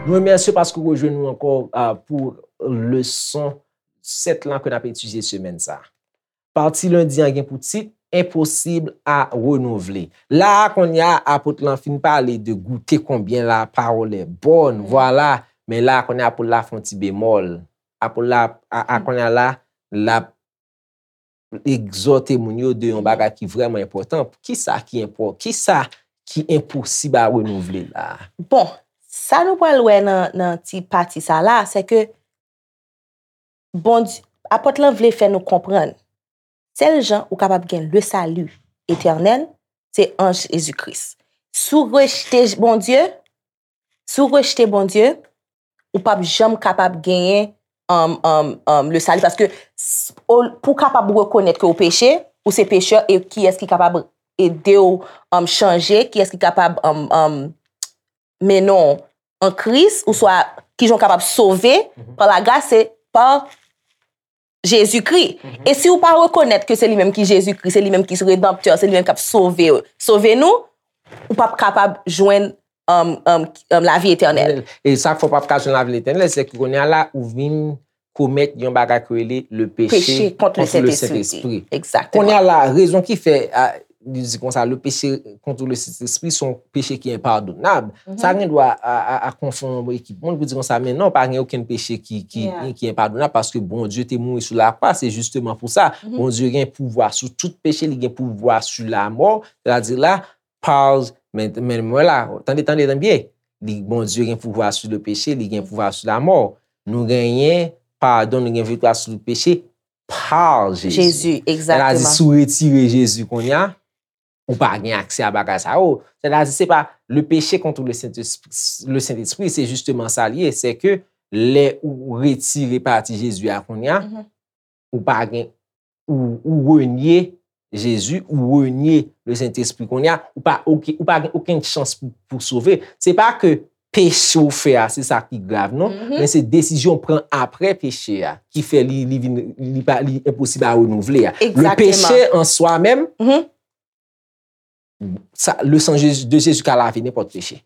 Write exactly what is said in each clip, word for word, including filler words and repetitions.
Nou remèsye w paske w rejwenn nou ankò, ah, pou leson sèt lan ke n ap etidye semèn sa a. Pati lendi an gen pou tit Enposib a renouvle. La a, kounye a, apot lan fin pale de goute konbyen la parole est bonne, vwala. Men la a, kounye a, apot la fè yon ti bemòl. Apot la, a, a, kounye a la, l ap egzòte moun yo de yon bagay ki vrèman enpòtan. Kisa ki enpò-, kisa ki enposib a renouvle la a? Bon, sa nou pral wè nan, nan ti pati sa la, se ke Bondye, apot lan vle fè nou konprann, sèl jan ou kapab gen le salut éternel, se an Jezi Kris. Si w rejte Bondye, si w rejte Bondye, ou p ap janm kapab genyen, um, um, um, le salut. Paske s-, o, pou w kapab rekonèt ke w peche, ou se pechè, e kiyès ki kapab ede w, um, chanje, kiyès ki kapab, um, um, mennen w an Kris, oswa kijan w kapab sove pa lagras, se pa Jezikri. E si w pa rekonèt ke se li menm ki Jezikri, se li menm ki redanptè, se li menm k ap sove, sove nou, ou p ap kapab jwenn, um, um, um, lavi etènèl. E sa k fè w p ap ka jwenn lavi etènèl, se ke kounye a la, ou vin komèt yon bagay ki rele le péché contre le Saint-Esprit. Kounye a la, rezon ki fè, a, li di konsa, le péché contre le Saint-Esprit se yon peche ki enpadonab. Sa gen dwa a, a, a konfonn yon ekip moun pou di konsa, men non, pa gen okenn peche ki, ki, ki enpadonab, paske Bondye te mouri sou lakwa, se jisteman pou sa. Bondye gen pouvwa sou tout peche, li gen pouvwa sou lamò, sètadi la, pa, men, men mwen la, tande, tande, tande byen. Li, Bondye gen pouvwa sou le péché, li gen pouvwa sou lamò. Nou genyen padon, nou gen viktwa sou le péché pa Jezi. Jezi, egzakteman. Sètadi, si w retire Jezi kounye a, ou pa gen aksè a bagay sa yo. Sètadi, se pa le péché contre le Saint-Esprit, le Saint-Esprit, se jisteman sa l ye, se ke lè ou retire pati Jezi a kounye a, ou pa gen, ou, ou renye Jezi, ou renye le Sentespri. Kounye a, ou pa, oke, ou pa gen okenn chans pou, pou sove. Se pa ke peche w fè a, se sa ki grav, non, men se desizyon w pran apre peche a ki fè li, li vin, li pa, li enposib a renouvle a. Le péché en soi-même, sa, le sang Jésus, de Jésus ka lave nenpòt peche.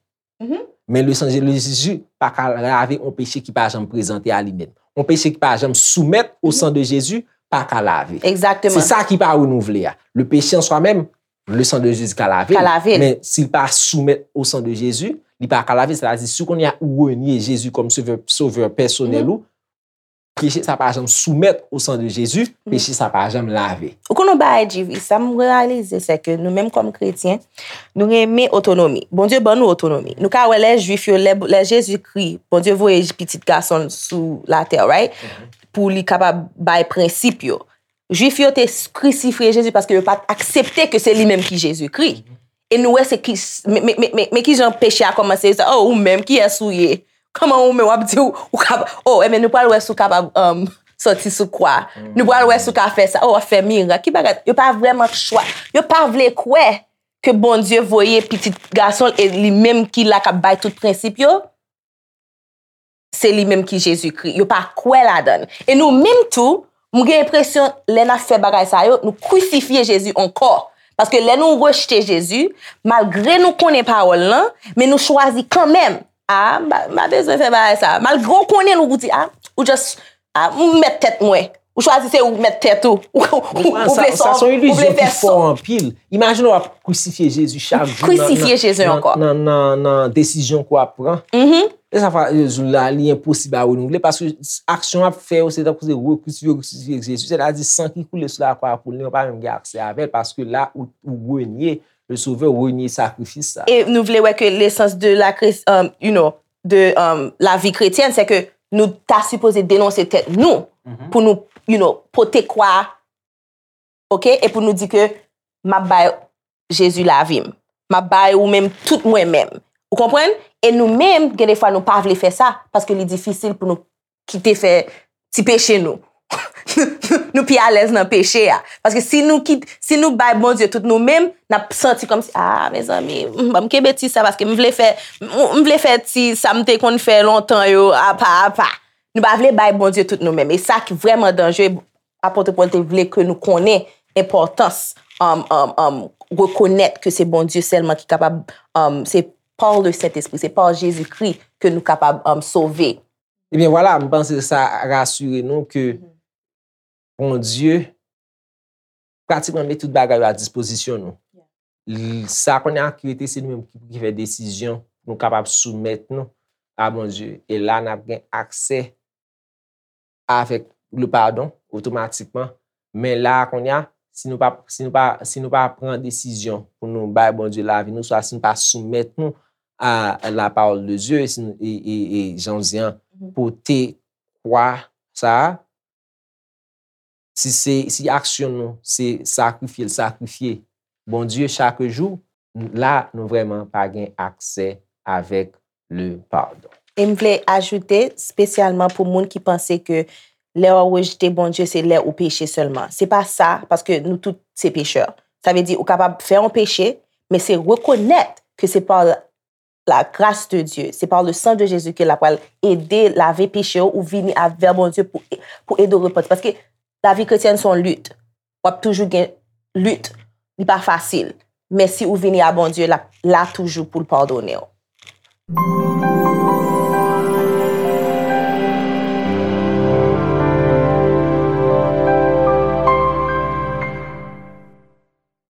Men le sang de Jésus pa ka lave yon peche ki pa janm prezante a li menm. Yon peche ki pa janm soumèt o san de Jezi pa ka lave. Egzakteman. Se sa ki pa renouvle a. Le péché en soi-même, le sang de Jésus ka lave l. Ka lave l. Men si l pa soumèt o san de Jezi, li pa ka lave. Sètadi, si kounye a ou renye Jezi kòm sovè, sovè pèsonèl ou, peche sa pa janm soumèt o san de Jezi, peche sa pa janm lave. Ou konn yon bagay, G V, sa m reyalize, se ke nou menm kòm kretyen, nou renmen otonomi. Bondye ban nou otonomi. Nou ka wè lè Jwif yo, lè, lè Jezikri, Bondye voye pitit gason l sou latè, right? Pou li kapab bay prensip yo. Jwif yo te s-, krisifye Jezi paske yo pa t aksepte ke se li menm ki Jezikri. E nou wè se ki, men, men, men, men, men kijan peche a kòmanse, yo di, "Oh, ou menm, kiyès ou ye? Kòman ou menm w ap di ou, ou kab-, oh, ebyen, nou pral wè si w kapab, um, sòti sou kwa. Nou pral wè si w ka fè sa. Oh, w ap fè mirak." Ki bagay? Yo pa vrèman chwa-, yo pa vle kwè ke Bondye voye pitit gason l e li menm ki la k ap bay tout prensip yo. Se li menm ki Jezikri. Yo pa kwè ladan l. E nou menm tou, m gen enpresyon, lè n ap fè bagay sa yo, nou krisifye Jezi ankò. Paske lè nou rejte Jezi, malgre nou konnen pawòl lan, men nou chwazi kanmenm. "A, m pa, m pa bezwen fè bagay sa." Malgre w konnen l, ou di, "A, ou just, a, m mèt tèt mwen." Ou chwazi se ou k mèt tèt ou. Ou, ou, ou vle sa, sa se yon ilizyon ki fò anpil. Imajine w ap krisifye Jezi chak jou nan, nan, nan, nan, nan desizyon ke w ap pran. E sa fè, e, jou la, li enposib a renouvle, paske aksyon w ap fè yo, se tankou se rekrisifye, rekrisifye Jezi. Sètadi, san ki koule sou lakwa a pou li, ou pa menm gen aksè avè l, paske la, ou, ou renye le Sovè, ou renye sakrifis sa. E nou vle wè ke lesans de la Chris-, um, you know, de, um, lavi kretyèn, se ke nou ta sipoze denonse tèt nou, pou nou, you know, pote kwa a, oke, e pou nou di ke m ap bay Jezi lavi m. M ap bay ou menm tout mwen menm. Ou konprann? E nou menm, gen de fwa nou pa vle fè sa, paske li difisil pou nou kite fè ti peche nou. Nou pi alèz nan peche a. Paske si nou kit-, si nou bay Bondye tout nou menm, n ap santi kòmsi, "A, mezanmi, m, ban m kenbe ti sa, paske m vle fè, m, m vle fè ti sa m te konn fè lontan yo, apa, apa." Nou pa vle bay Bondye tout nou menm. E sa ki vrèman danjere, Apot Pòl te vle ke nou konnen enpòtans, um, um, um, rekonèt ke se Bondye sèlman ki kapab, um, se pa le Sentespri, se pa Jezikri ke nou kapab, um, sove. Ebyen vwala, m panse sa rasire nou ke Bondye pratikman met tout bagay yo a dispozisyon nou. L- Sa kounye a ki rete se nou menm ki, ki fè desizyon pou nou kapab soumèt nou a Bondye. E la n ap gen aksè avèk le padon otomatikman. Men la kounye a, si nou pa si nou pa si nou pa pran desizyon pou nou bay Bondye lavi nou, swa si nou pa soumèt nou a la parole de Dieu, e, si nou- e, e, e jan w di an, pote kwa sa a, si se si aksyon nou se sakrifye l sakrifye Bondye chak jou, la nou vrèman pa gen aksè avèk le padon. E m vle ajoute, espesyalman pou moun ki panse ke lè w rejte Bondye se lè ou peche sèlman. Se pa sa, paske nou tout se pechè. Sa vle di ou kapab fè yon peche, men se rekonèt ke se pa la grâce de Dieu, c'est par le sang de Jésus ke l ap pral ede lave peche w, ou vini avè Bondye pou, pou ede w repanti. Paske lavi kretyèn se yon lit. W ap toujou gen lit. Li pa fasil. Men si ou vini a Bondye, l ap la toujou pou l padone w.